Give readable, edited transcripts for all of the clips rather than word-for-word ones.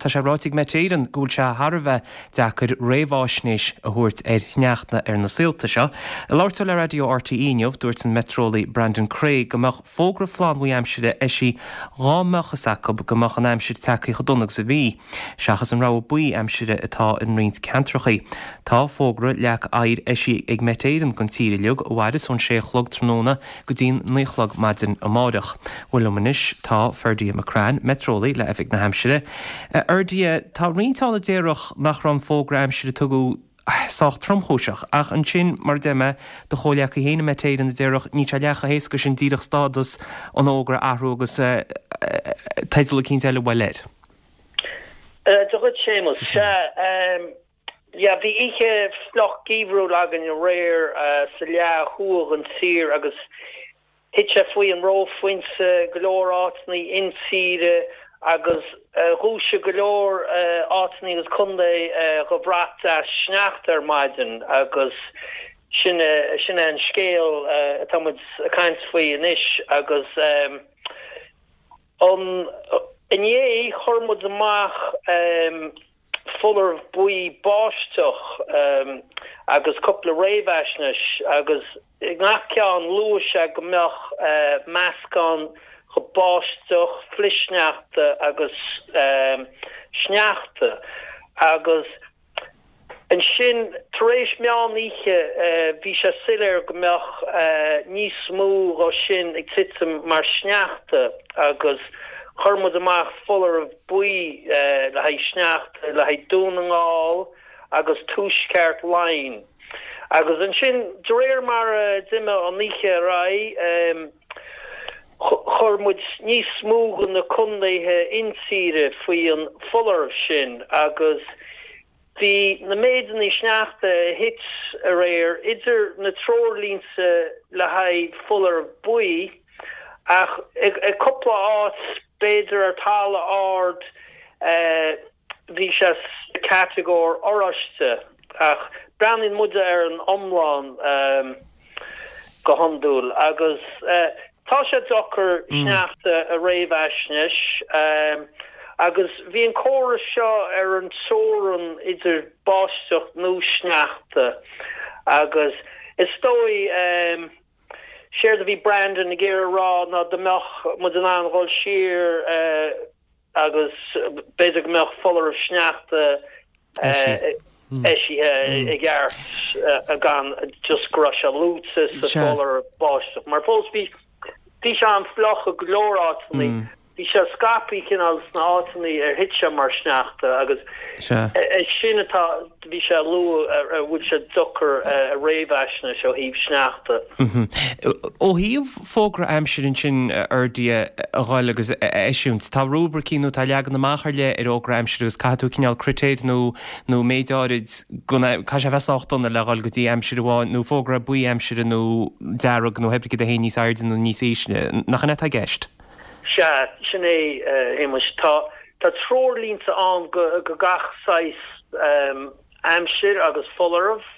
tá sé ráite ag Met Éireann go bhfuil sé thar a bheith deacair réamháisnéis a thabhairt ar shneachta ar na saolta seo. Ag labhairt dó le raidió RTÉ inniu, dúirt an meitreolaí Brandon Creagh go mbeadh fógra flannbhuí aimsire eisithe dhá mbeadh fhios acu go mbeadh an aimsir tagtha chomh dona agus a bhí, seachas an rabhadh buí aimsire atá in roinnt ceantracha. Tá fógra leac oighir eisithe ag Met Éireann don tír uilig, a mhairfeas ón sé a chlog tráthnóna go dtí'n 9 a chlog maidin amáireach. Bhuel liom anois tá Ferdia McCrann, meitreolaí le Oifig na hAimsire. A Fherdia, tá roinnt ann a déarfadh nach raibh an fógra aimsire a tugadh sách tromchúiseach, ach ansin, mar a deir mé, do chomhleacaí féin i Met Éireann a déarfadh níl sé leath chomh héasca sin díreach stádas an fhógra a athrú agus teideal eicínt eile a fháil air. Dia dhuit Séamus. Sea, yeah, bhí oíche fliuch geimhriúil againn aréir sa leath thuaidh den tír agus thit sé faoi an reophointe go leor áiteanna intíre agus dhúisigh go leor áiteanna agus contae dho bhrat deas sneachta ar maidin agus sin é sin é an scéal atá muid ag caint faoi anois agus an inné chuir muid amach foláireamh buí báisteach agus cúpla réamhaisnéis agus i ngach ceann luaigh sé go mbeadh meascán de báisteach, flichshneachta agus sneachta agus Ansin, tar éis meán oíche, bhí sé soiléir go mbeadh níos mó dho sin ag titim mar sneachta agus chuir muid amach foláireamh buí le haghaidh sneachta le haghaidh Dún na nGall agus Tuaisceart Laighean. Agus ansin, de réir mar a d'imigh an oíche ar aghaidh, chuir muid níos mó de na contaetha intíre faoi an foláireamh sin agus bhí na méideanna sneachta a thit aréir idir na treoirlínte le haghaidh foláireamh buí ach i cúpla áit, b'fhéidir ar talamh ard, bhí sé sa chatagóir oráiste ach breathnaíonn muide ar an iomlán go hiondúil agus tá sé deacair sneachta a réamhaisnéis agus bhí an córas seo ar an teorainn idir báisteach nó sneachta agus is dóigh séard a bhí Brandon ag iarraidh a rá ná dá mbeadh muid in ann dhul siar agus b'fhéidir go mbeadh foláireamh sneachta eisithe i gceart gan just go raibh sé luaite sa foláireamh báisteach. Mar fós bhí bhí sé an-fhliuch i go leor áiteanna. Bhí sé scaipthe cineál sna áiteanna ar thit sé mar sneachta agus é sin atá bhí sé a lua a bhfuil sé deacair a réamhaisnéis ó thaobh sneachta. Ó thaobh fógra aimsire ansin a Fherdia a dhul agus a eisiúint, tá rúibricí nó tá leagan amach ar leith ar fhógra aimsire agus caithfidh tú cineál critéir nó nó méid áirid go caithfidh sé a bheith sách dona le dhul go dtí aimsir amháin nó fógra buí aimsire nó dearg nó pé ar bith cad a théann níos airde nó níos ísle. Nach in é atá i gceist? Sea, sin é, a Shéamais. Tá tá treoirlínte ann go go gach saghas aimsir agus foláireamh.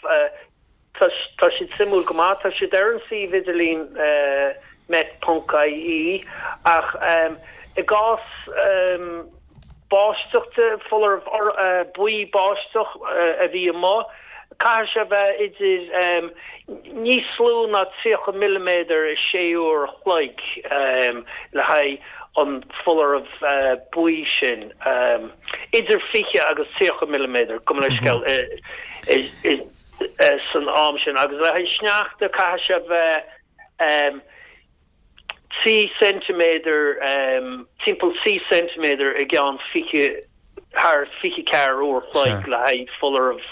Tá siad suimiúil go maith. Tá siad ar an suíomh idirlín met.ie ach i gcás báisteach de, foláireamh buí báisteach a bhí amuigh, caithfidh sé a bheith idir níos lú ná 30 milliméadar i sé uair a chloig le haghaidh an foláireamh buí sin, idir 20 agus 30 milliméadar, gabh mo leithscéal, i. san am sin agus le haghaidh sneachta caithfidh sé bheith 3 ceintiméadar, timpeall 3 ceintiméadar i gceann 20, thar 24 uair a chloig le haghaidh foláireamh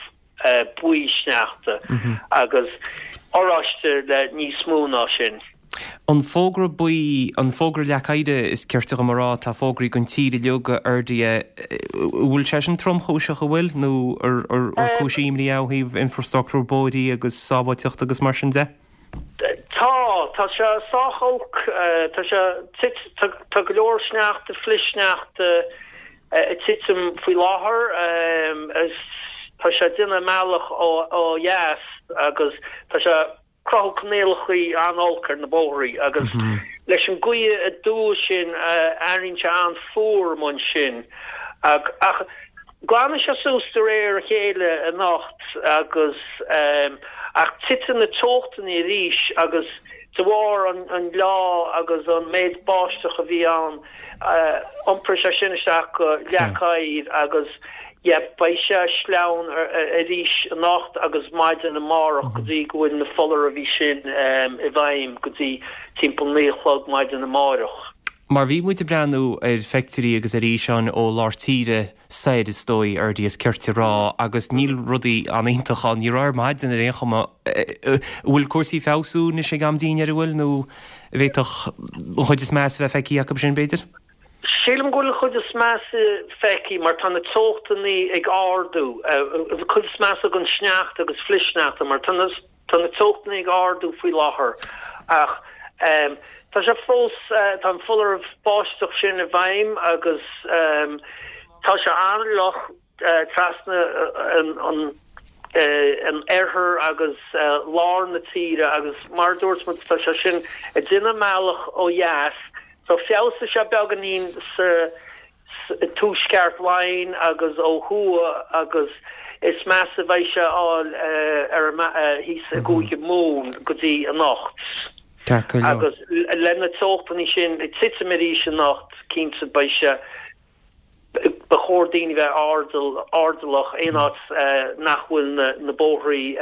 buí sneachta agus oráiste le níos mó ná sin. An fógra buí, an fógra leac oighir is cirte dhom a rá, atá fógraithe don tír uilig, a Fherdia, an bhfuil sé sin tromchúiseach, an bhfuil? Nó ar cúis imní é ó thaobh infrastructúr bóithrí agus sábháilteachta agus mar sin de? Tá, tá sé sách olc, tá sé, tá, tá go leor sneachta, flichshneachta ag titim faoi láthair, tá sé ag déanamh a mbealach ó dheas agus tá sé, cruthú coinníollacha an-olc ar na bóithrí agus leis an gaoth aduaidh sin éiríonn sé an-fhuar amuigh ansin. Ach glanfaidh sé suas de réir a chéile anocht agus ach titfidh na teochtanna arís agus de bharr an leá agus an méid báisteach a bhí ann iompróidh sé sin isteach go leac oighir agus yeah beidh sé sleamhain arís anocht agus maidin amárach go dtí go bhfuil na foláirimh sin i bhfeidhm go dtí timpeall 9 a chlog maidin amáireach. Mar bhí muid ag breathnú ar phictiúirí agus ar fhíseáin ó lár tíre soir, is dóigh, Ferdia, is cirte a rá, agus níl rudaí an-iontach ann. Ní raibh ar maidin ar aon chuma. An bhfuil cúrsaí ag feabhsú anois ag am dinnéir, an bhfuil, nó an bhféadfadh an chuid is measa a bheith feicthe acu sin, b'fhéidir? Sílim go bhfuil an chuid is measa feicthe mar tá na teochtanna ag ardú. An chuid is measa den sneachta agus flichshneachta mar tá na. Tá na teochtanna ag ardú faoi láthair ach tá sé fós, tá an foláireamh báisteach sin i bhfeidhm agus tá sé an-fhliuch trasna an oirthir agus lár na tíre agus mar a dúirt muid tá sé sin ag déanamh a mbealach ó dheas so feabhsóidh sé beagáinín sa tuaisceart Laighean agus ó thuaidh agus is measa a bheidh sé a fháil ar thíos i gCúige Mumhan go dtí anocht. Agus le na teochtanna sin ag titim arís anocht, cinnte beidh sé, ba chóir daoine bheith airdeallach aon áit nach bhfuil na bóithrí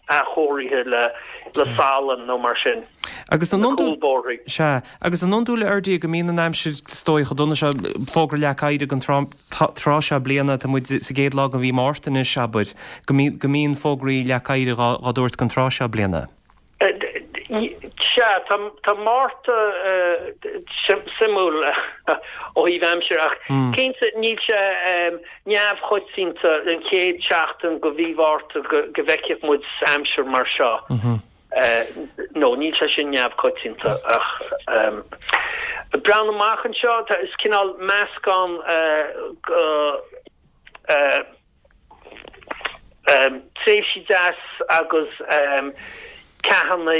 athchóirithe le salann nó mar sin. Agus an iondúil, sea, agus an iondúil a Fherdia go mbíonn an aimsir is dóigh chomh dona seo, fógra leac oighir ag an tráth seo bliana, tá muid sa gcéad lá de mhí Márta anois, abair, go mbíonn fógraí leac oighir dhá dtabhairt don tráth seo bliana. Sea, tá Márta suimiúil ó thaobh aimsire ach cinnte níl sé neamhchoitianta an chéad seachtain de mhí Mhárta go bhfeicfeadh muid aimsir mar seo. No, níl sé sin neamhchoitianta ach breathnú amach anseo, is cineál meascán de tréimhsí deas agus ceathanna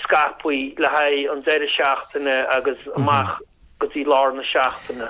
scaipthe le haghaidh an deireadh seachtaine agus amach go dtí lár na seachtaine.